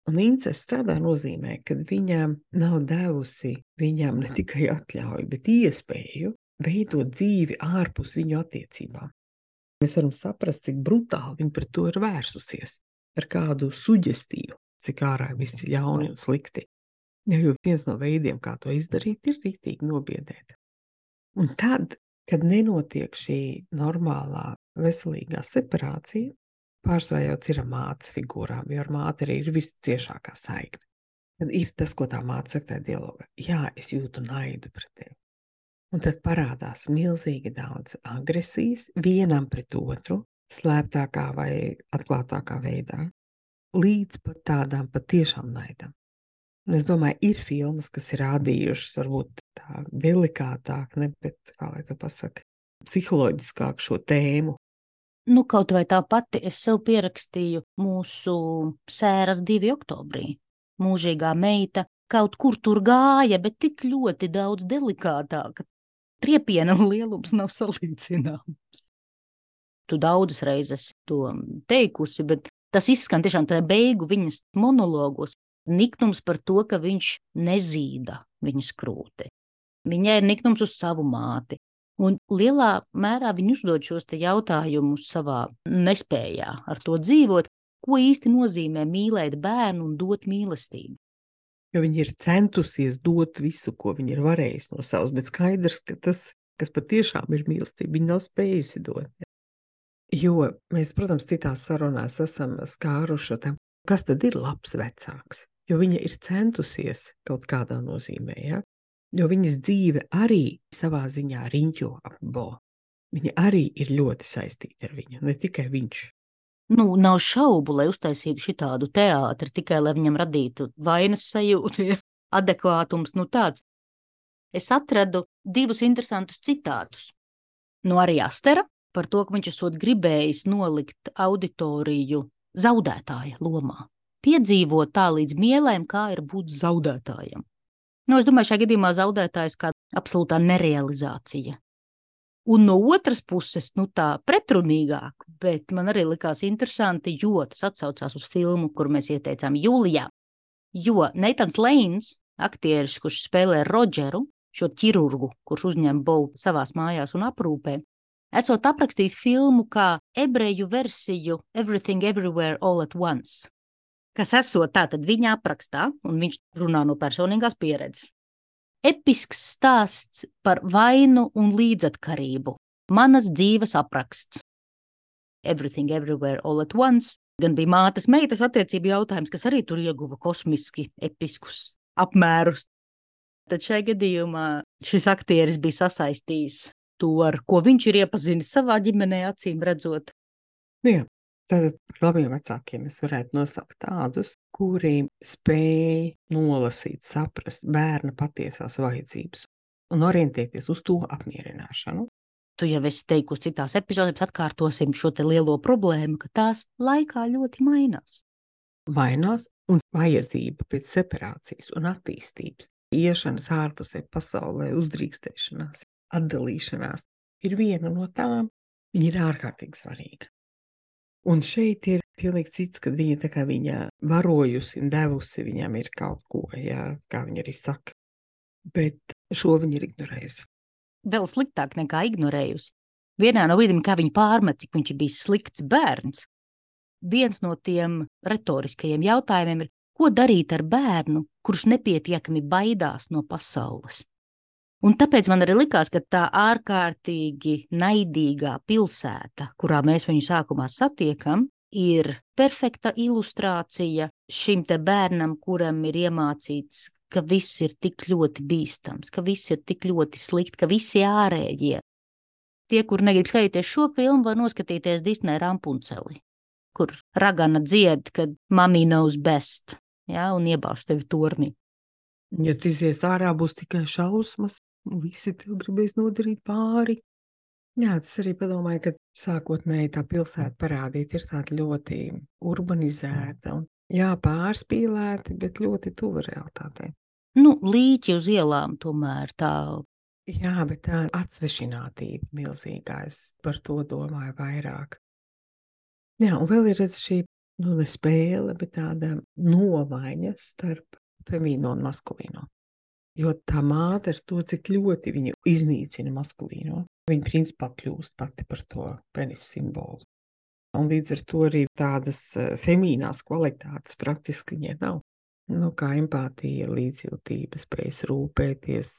Un incests tādā nozīmē, ka viņa nav devusi viņam ne tikai atļauju, bet iespēju veidot dzīvi ārpus viņu attiecībām. Mēs varam saprast, cik brutāli viņa pret to ir vērsusies, ar kādu suģestīvu, cik ārā viss ir ļauni un slikti. Jo viens no veidiem, kā to izdarīt, ir rītīgi nobiedēt. Un tad, kad nenotiek šī normālā veselīgā separācija pārsvarā jau ir ar mātes figūrām, jo ar māti arī ir visciešākā saikne. Tad ir tas, ko tā māte saka tajā dialogā. Jā, es jūtu naidu pret tevi. Un tad parādās milzīgi daudz agresijas vienam pret otru, slēptākā vai atklātākā veidā, līdz pat tādām patiešām naidām. Un es domāju, ir filmas, kas ir rādījušas varbūt tā delikātāk, ne, bet, kā lai to pasaka, psiholoģiskāk šo tēmu. Nu, kaut vai tā pati es sev pierakstīju mūsu sēras 2. oktobrī. Mūžīgā meita kaut kur tur gāja, bet tik ļoti daudz delikātāka. Triepiena lielums nav salīdzināms. Tu daudzas reizes to teikusi, bet tas izskan tiešām tajā beigu viņas monologos. Niknums par to, ka viņš nezīda viņas krūti. Viņai ir niknums uz savu māti. Un lielā mērā viņi uzdod šos te jautājumus savā nespējā ar to dzīvot, ko īsti nozīmē mīlēt bērnu un dot mīlestību. Jo viņi ir centusies dot visu, ko viņi ir varējusi no savas, bet skaidrs, ka tas, kas patiešām ir mīlestība, viņi nav spējusi dot. Jo mēs, protams, citās sarunās esam skāruši tam, kas tad ir labs vecāks, jo viņa ir centusies kaut kādā nozīmē, ja? Jo viņas dzīve arī savā ziņā riņķo ap Bo. Viņa arī ir ļoti saistīta ar viņu, ne tikai viņš. Nu, nav šaubu, lai uztaisītu šitādu teātri, tikai lai viņam radītu vainas sajūtu, ja adekvātums, nu tāds. Es atradu 2 interesantus citātus. No arī Astera par to, ka viņš esot gribējis nolikt auditoriju zaudētāja lomā. Piedzīvot tā līdz mielēm, kā ir būt zaudētājam. Nu, es domāju, šajā gadījumā zaudētājs kā absolūtā nerealizācija. Un no otras puses, nu tā pretrunīgāk, bet man arī likās interesanti, jo tas atsaucās uz filmu, kur mēs ieteicām jūlijā. Jo Neitans Leins, aktieris, kurš spēlē Rodžeru, šo ķirurgu, kurš uzņem Bo savās mājās un aprūpē, esot aprakstījis filmu kā ebreju versiju Everything Everywhere All at Once, kas esot tātad viņa aprakstā, un viņš runā no personīgās pieredzes. Episks stāsts par vainu un līdzatkarību. Manas dzīves apraksts. Everything Everywhere All at Once gan bija mātes meitas attiecību jautājums, kas arī tur ieguva kosmiski episkus apmērus. Tad šai gadījumā šis aktieris bija sasaistījis to, ar ko viņš ir iepazinis savā ģimenē, acīm redzot. Jā. Tad par labiem vecākiem es varētu nosaukt tādus, kuri spēj nolasīt, saprast bērna patiesās vajadzības un orientēties uz to apmierināšanu. Tu jau esi teikusi citās epizodēs, atkārtosim šo te lielo problēmu, ka tās laikā ļoti mainās. Mainās un vajadzība pēc separācijas un attīstības, iešanas ārpusē pasaulē, uzdrīkstēšanās, atdalīšanās ir viena no tām, viņa ir ārkārtīgi svarīga. Un šeit ir pilnīgi cits, kad viņa tā kā viņa varojusi un devusi viņam ir kaut ko, jā, kā viņa arī saka. Bet šo viņa ir ignorējusi. Vēl sliktāk nekā ignorējusi. Vienā no brīdīm, kā viņa pārmet, cik viņš ir bijis slikts bērns, viens no tiem retoriskajiem jautājumiem ir, ko darīt ar bērnu, kurš nepietiekami baidās no pasaules. Un tāpēc man arī likās, ka tā ārkārtīgi naidīgā pilsēta, kurā mēs viņu sākumā satiekam, ir perfekta ilustrācija šim te bērnam, kuram ir iemācīts, ka viss ir tik ļoti bīstams, ka viss ir tik ļoti slikti, ka visi ārējie. Tie, kur negrib skatīties šo filmu, var noskatīties Disney Rampunceli, kur ragana dzied, kad mommy knows best, ja, un iebāž tevi tornī. Ja tu izies ārā, būs tikai šausmas. Visi tev gribēs nodarīt pāri. Jā, tas arī padomāju, ka sākotnēji tā pilsēta parādīta ir tāda ļoti urbanizēta un jā, pārspīlēta, bet ļoti tuva realitātei. Nu, līķi uz ielām tomēr tā. Jā, bet tā atsvešinātība milzīgā, es par to domāju vairāk. Jā, un vēl ir šī, nu, ne spēle, bet tāda nomaiņa starp femīno un maskulīno. Jo tā māte ar to, cik ļoti viņu iznīcina maskulīno, viņa principā kļūst pati par to penis simbolu. Un līdz ar to arī tādas femīnās kvalitātes praktiski viņai nav. Nu, kā empātija, līdzjūtība, spējas rūpēties,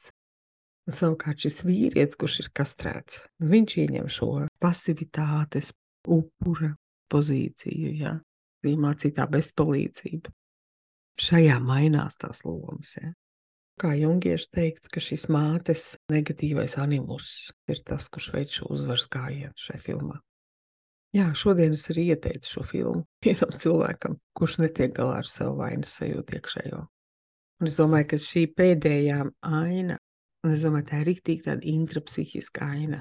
Un savukārt šis vīrietis, kurš ir kastrēts, viņš ieņem šo pasivitātes upura pozīciju, ja, iemācītā bezpalīdzība. Šajā mainās tās lomas, ja. Kā jungieši teikt, ka šis mātes negatīvais animus ir tas, kurš veic šo uzvaras gājienu šai filmā. Jā, šodien es arī ieteicu šo filmu vienam cilvēkam, kurš netiek galā ar savu vainas sajūtu iekšējo. Un es domāju, ka šī pēdējā aina, un es domāju, tā ir riktīgi tāda intrapsihiska aina,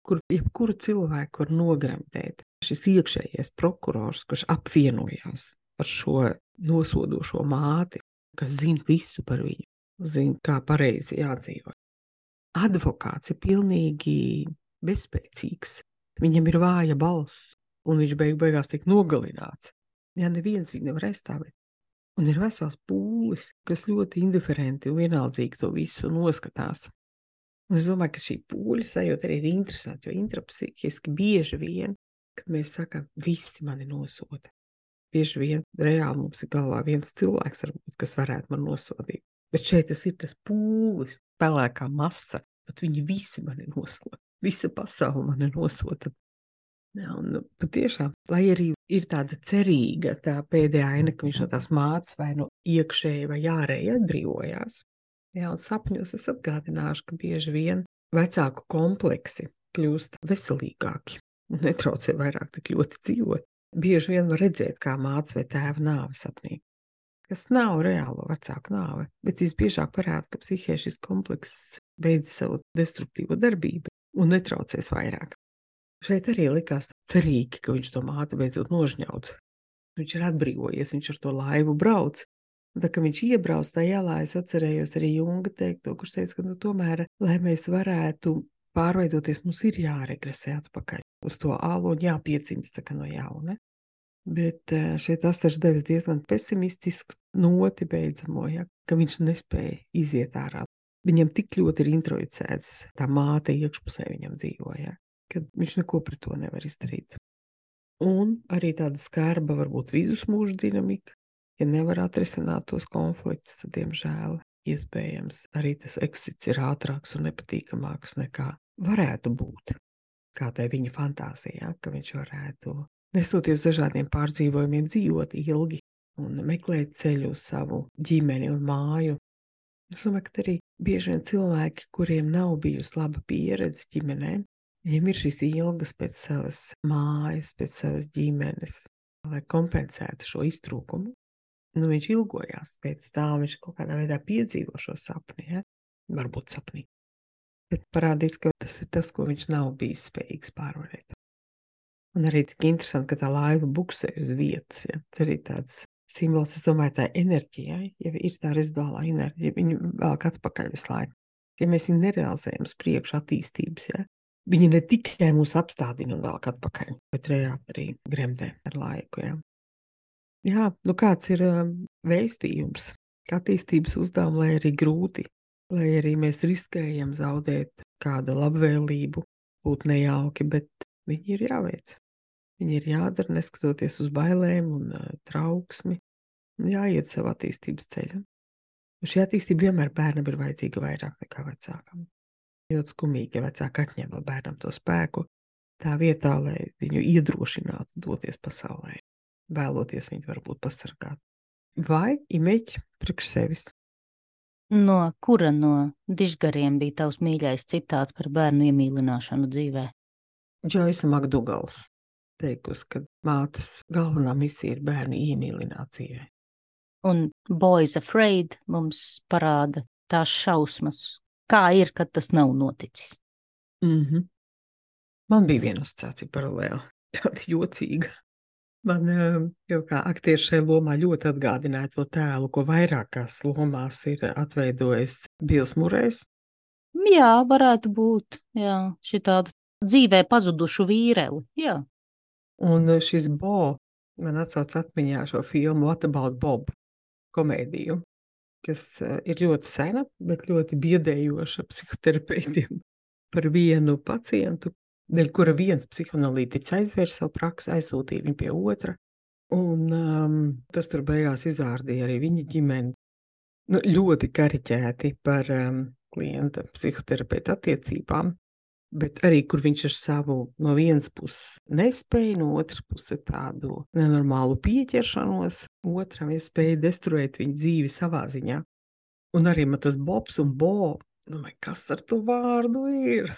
kur jebkuru cilvēku var nogremdēt. Šis iekšējais prokurors, kurš apvienojās ar šo nosodošo māti, kas zina visu par viņu, zina, kā pareizi jādzīvot. Advokāts ir pilnīgi bezspēcīgs. Viņam ir vāja balss, un viņš beigās tiek nogalināts. Jā, neviens viņu nevar aizstāvēt. Un ir vesels pūlis, kas ļoti indiferenti un vienaldzīgi to visu noskatās. Un es domāju, ka šī pūļa sajūta arī ir interesanti, jo intrapsihiski bieži vien, kad mēs sakam, visi mani nosoda. Bieži vien reāli mums ir galvā viens cilvēks, varbūt, kas varētu man nosodīt. Bet šeit tas ir tas pūlis, pelēkā masa, bet viņi visi mani nosoda. Visa pasaule mani nosoda. Jā, un patiešām, lai arī ir tāda cerīga tā pēdējā aina, ka viņš no tās mātes vai no iekšēji vai ārēji atbrīvojās. Jā, un sapņos es atgādināšu, ka bieži vien vecāku kompleksi kļūst veselīgāki un netraucē vairāk tik ļoti dzīvot. Bieži vien var redzēt, kā mātes vai tēva nāve sapnī. Kas nav reālo vecāku nāve, bet visbiežāk parāda, ka psihē šis komplekss beidz savu destruktīvo darbību un netraucēs vairāk. Šeit arī likās cerīgi, ka viņš to māti beidzot nožņauts. Viņš ir atbrīvojies, viņš ar to laivu brauc. Un tā, ka viņš iebrauc tajā ielā, es atcerējos arī Junga teikto, kurš teica, ka tomēr, lai mēs varētu pārveidoties, mums ir jāregresē atpakaļ uz to alu un jāpiedzimst tā kā no jauna. Bet šeit Astars devis diezgan pesimistisku noti beidzamo, ja, ka viņš nespēja iziet ārā. Viņam tik ļoti ir introjicēts, tā māte iekšpusē viņam dzīvoja, ka viņš neko pret to nevar izdarīt. Un arī tāda skarba varbūt vidusmūža dinamika, ja nevar atrisināt tos konfliktus, tad, diemžēl, iespējams, arī tas eksits ir ātrāks un nepatīkamāks nekā varētu būt, kā tai viņa fantāzijā, ka viņš varētu, nestoties dažādiem pārdzīvojumiem, dzīvot ilgi un meklēt ceļu uz savu ģimeni un māju. Es domāju, ka arī bieži vien cilvēki, kuriem nav bijusi laba pieredze ģimenē, viņiem ir šīs ilgas pēc savas mājas, pēc savas ģimenes, lai kompensētu šo iztrūkumu. Nu, viņš ilgojās pēc tā, viņš kaut kādā veidā piedzīvo šo sapni, ja? Varbūt sapnī. Bet parādīts, ka tas ir tas, ko viņš nav bijis spējīgs pārvarēt. Un arī cik interesanti, ka tā laiva buksē uz vietas, ja? Tas arī tāds simbols, es domāju, tā enerģijai, ja ir tā reziduālā enerģija, viņu velk atpakaļ visu laiku. Ja mēs viņu nerealizējam uz priekšu attīstības, ja? Viņi ne tikai mūs apstādina un velk atpakaļ, bet reāli arī gremdē ar laiku, ja? Jā, nu kāds ir vēstījums, ka attīstības uzdevumi, lai arī grūti, lai arī mēs riskējam zaudēt kādu labvēlību, būt nejauki, bet viņi ir jāveic. Viņi ir jādara, neskatoties uz bailēm un trauksmi, un jāiet savu attīstības ceļu. Un šī attīstība vienmēr bērnam ir vajadzīga vairāk nekā vecākam. Ļoti skumīgi, ja vecāki atņem no bērnam to spēku, tā vietā, lai viņu iedrošinātu doties pasaulē. Vēloties viņu varbūt pasargāt. Vai imeķi priekš sevis? No kura no dižgariem bija tavs mīļais citāts par bērnu iemīlināšanu dzīvē? Džoisa Makdugals teikusi, ka mātes galvenā misija ir bērnu iemīlināt dzīvē. Un Boys Afraid mums parāda tās šausmas, kā ir, kad tas nav noticis. Man bija viena asociācija paralēli, tāda jocīga. Man jau kā aktieris šajā lomā ļoti atgādināja to tēlu, ko vairākās lomās ir atveidojis Bils Murejs. Jā, varētu būt, jā, šitādu dzīvē pazudušu vīreli, jā. Un šis Bo man atsauc atmiņā šo filmu What About Bob komēdiju, kas ir ļoti sena, bet ļoti biedējoša psihoterapeitiem par vienu pacientu, dēļ kura viens psihoanalītiķis aizvērsa savu praksi, aizsūtīja viņu pie otra, un tas tur beigās izārdīja arī viņa ģimeni. Nu, ļoti kariķēti par klienta psihoterapeita attiecībām, bet arī, kur viņš ar savu no vienas puses nespēju, no otras puses tādu nenormālu pieķeršanos, otram spēja destruēt viņa dzīvi savā ziņā. Un arī man tas Bobs un Bo, domāju, kas ar to vārdu ir?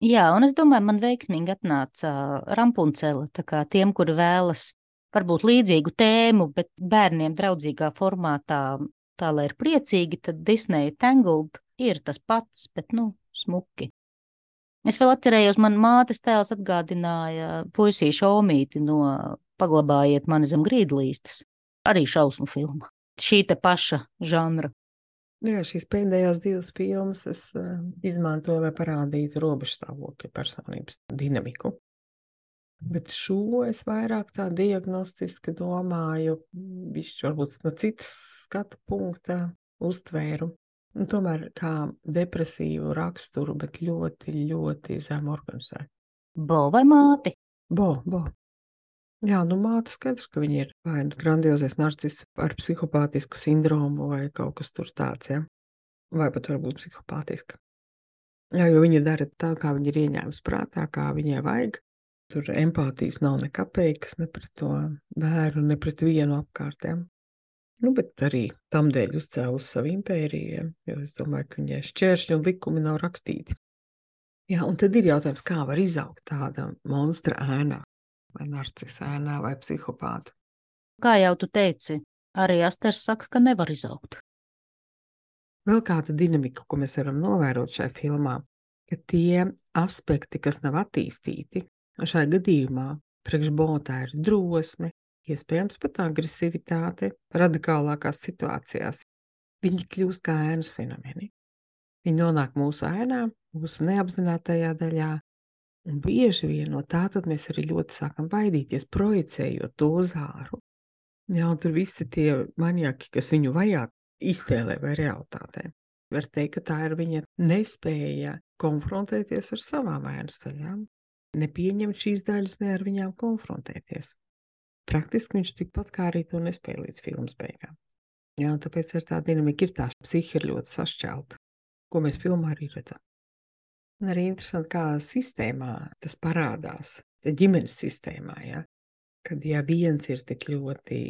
Jā, un es domāju, man veiksmīgi atnāca Rampuncele, tā kā tiem, kuri vēlas varbūt līdzīgu tēmu, bet bērniem draudzīgā formātā, tā lai ir priecīgi, tad Disney Tangled ir tas pats, bet, smuki. Es vēl atcerējos, man mātes tēls atgādināja puisīšu Omīti no Paglabājiet mani zem grīdlīstes. Arī šausmu filma. Šī te paša žanra. Jā, šīs pēdējās divas filmas es izmantoju, lai parādītu robežstāvokļa personības dinamiku. Bet šo es vairāk tā diagnostiski domāju, bišķi varbūt no citas skatu punkta uztvēru. Un tomēr kā depresīvu raksturu, bet ļoti, ļoti zem organizētu. Bo vai māti? Bo. Jā, māte skaidrs, ka viņa ir vai grandiozais narciss ar psihopātisku sindromu vai kaut kas tur tāds, ja? Vai pat varbūt psihopātiska. Jā, jo viņa dara tā, kā viņa ir ieņēmusi prātā, kā viņai vajag. Tur empātijas nav nekapeikas, ne pret to bērnu, ne pret vienu apkārtiem. Bet arī tam dēļ uzcēlus savu impēriju, jo es domāju, ka viņai šķēršļi un likumi nav rakstīti. Jā, un tad ir jautājums, kā var izaugt tāda monstra ēnā, vai narcisa ēnā, vai psihopāta. Kā jau tu teici, arī Asters saka, ka nevar izaugt. Vēl kāda dinamika, ko mēs varam novērot šajā filmā, ka tie aspekti, kas nav attīstīti, šajā gadījumā priekš Botā ir drosme, iespējams pat agresivitāte radikālākās situācijās. Viņi kļūst kā ēnas fenomeni. Viņi nonāk mūsu ēnā, mūsu neapzinātajā daļā, un bieži vien no tā tad mēs arī ļoti sākam baidīties, projicējot to uz āru. Jā, un tur visi tie maniaki, kas viņu vajā iztēlē vai realitātē. Var teikt, ka tā ir viņa nespēja konfrontēties ar savām ēnas daļām, nepieņemt šīs daļas, ne ar viņām konfrontēties. Praktiski viņš tikpat kā arī to nespēja līdz filmas beigām. Jā, un tāpēc ar tā dinamika ir tā psihi ir ļoti sašķelta, ko mēs filmā arī redzam. Un arī interesanti, kā sistēmā tas parādās, ģimenes sistēmā, ja? Kad viens ir tik ļoti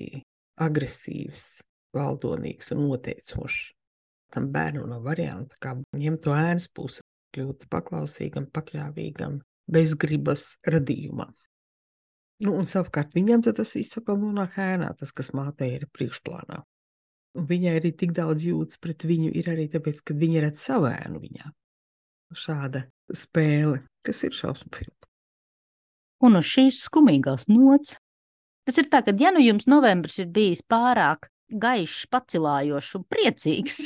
agresīvs, valdonīgs un noteicošs, tam bērnu nav varianta, kā ņemt to ēnas pusi, kļūt paklausīgam, pakļāvīgam, bezgribas radījumā. Un savukārt viņam tas izsaka nonāk ēnā, tas, kas mātei ir priekšplānā. Un viņai arī tik daudz jūtas pret viņu ir arī tāpēc, ka viņa redz savu ēnu viņā. Šāda spēle, kas ir šausmu filma. Un uz šīs skumīgās nots. Tas ir tā, ka ja jums novembris ir bijis pārāk gaišs, pacilājošs un priecīgs,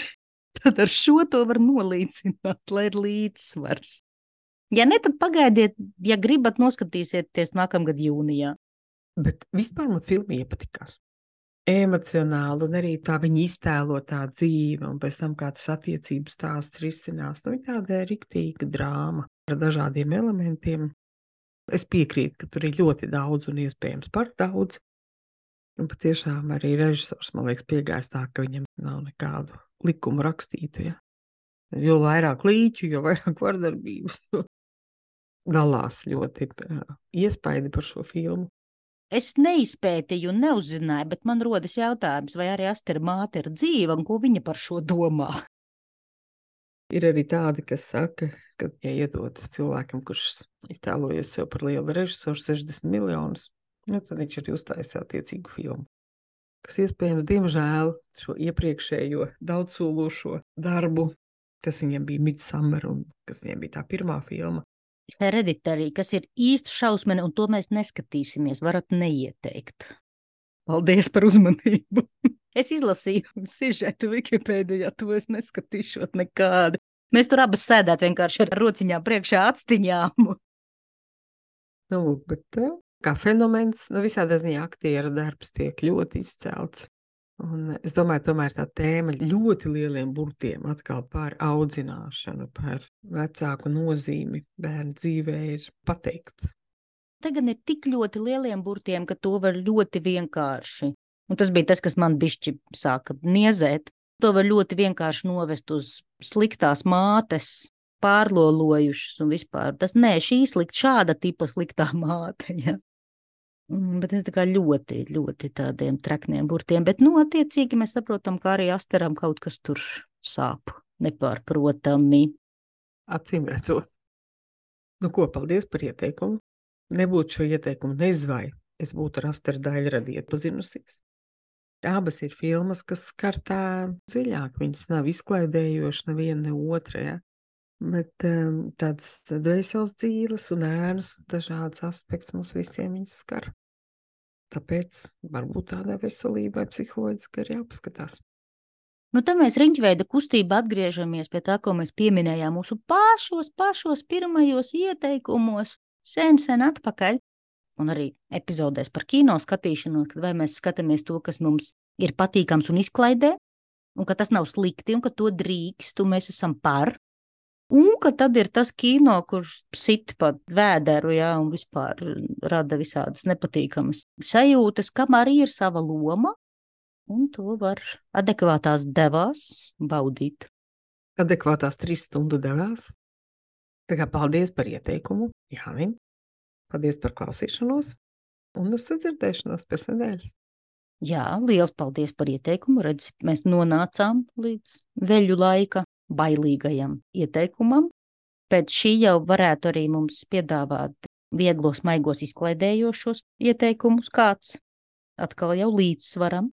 tad ar šo to var nolīdzināt, lai ir līdzsvars. Ja ne, tad pagaidiet, ja gribat noskatīsieties nākamgad jūnijā. Bet vispār man filma iepatikās. Emocionāli un arī tā viņa iztēlo tā dzīve un pēc tam kā tas attiecības stāsts risinās. Viņa tāda riktīga drāma ar dažādiem elementiem. Es piekrītu, ka tur ir ļoti daudz un iespējams par daudz. Un patiešām arī režisors, man liekas, piegājis tā, ka viņam nav nekādu likumu rakstītu. Ja? Jo vairāk līķu, jo vairāk vardarbības. Dalās ļoti iespaidi par šo filmu. Es neizpētīju un neuzzināju, bet man rodas jautājums, vai arī Astera māte ir dzīva un ko viņa par šo domā. Ir arī tādi, kas saka, ka, ja iedod cilvēkam, kurš iztēlojas sev par lielu režisoru 60 miljonus, tad viņš arī uztaisīs attiecīgu filmu. Kas iespējams, diemžēl, šo iepriekšējo daudzsološo darbu, kas viņam bija Midsommar un kas viņam bija tā pirmā filma, Hereditary, kas ir īsta šausmene, un to mēs neskatīsimies, varat neieteikt. Paldies par uzmanību. Es izlasīju sižetu Wikipēdijā, to es neskatīšot nekādu. Mēs tur abas sēdēt vienkārši ar rociņām priekšā atstiņām. Bet kā fenomens, visādā ziņā aktieru darbs tiek ļoti izcelts. Un es domāju, tomēr tā tēma ļoti lieliem burtiem atkal par audzināšanu, par vecāku nozīmi bērnu dzīvē ir pateikt. Tagad ir tik ļoti lieliem burtiem, ka to var ļoti vienkārši. Un tas bija tas, kas man bišķi sāka niezēt. To var ļoti vienkārši novest uz sliktās mātes, pārlolojušas un vispār. Šī šāda tipa sliktā māte, ja. Bet es tā kā ļoti, ļoti tādiem trakniem burtiem, bet, attiecīgi mēs saprotam, ka arī Asteram kaut kas tur sāp, nepārprotami. Acīm redzot. Paldies par ieteikumu. Nebūtu šo ieteikumu nezvai, es būtu ar Asteru Daļradi iepazinusies. Abas ir filmas, kas skar tā dziļāk, viņas nav izklaidējošas neviena ne otra, ja? Bet tāds dvēseles dzīves un ēnas dažādas aspekts mums visiem viņas skar. Tāpēc varbūt tādā veselībai psiholoģiski ir jāpaskatās. Tad mēs riņķveida kustība atgriežamies pie tā, ko mēs pieminējām mūsu pašos pirmajos ieteikumos sen atpakaļ. Un arī epizodēs par kino skatīšanos, kad vai mēs skatāmies to, kas mums ir patīkams un izklaidē, un ka tas nav slikti, un ka to drīkst, un mēs esam par. Un ka tad ir tas kino, kurš sit pat vēderu, jā, un vispār rada visādas nepatīkamas sajūtas, kam arī ir sava loma, un to var adekvātās devās baudīt. Adekvātās 3 stundu devās. Tā kā paldies par ieteikumu, Jāni. Paldies par klausīšanos, un uz sadzirdēšanos pēc nedēļas. Jā, liels paldies par ieteikumu. Redz, mēs nonācām līdz veļu laika bailīgajam ieteikumam. Pēc šī jau varētu arī mums piedāvāt vieglos, maigos, izklaidējošos ieteikumus kāds. Atkal jau līdzsvaram.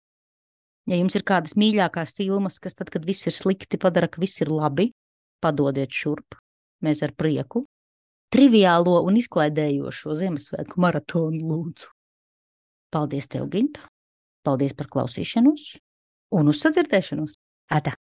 Ja jums ir kādas mīļākās filmas, kas tad, kad viss ir slikti, padara, ka viss ir labi, padodiet šurp. Mēs ar prieku. Triviālo un izklaidējošo Ziemassvētku maratonu lūdzu. Paldies tev, Ginta. Paldies par klausīšanos un uz sadzirdēšanos. Ata!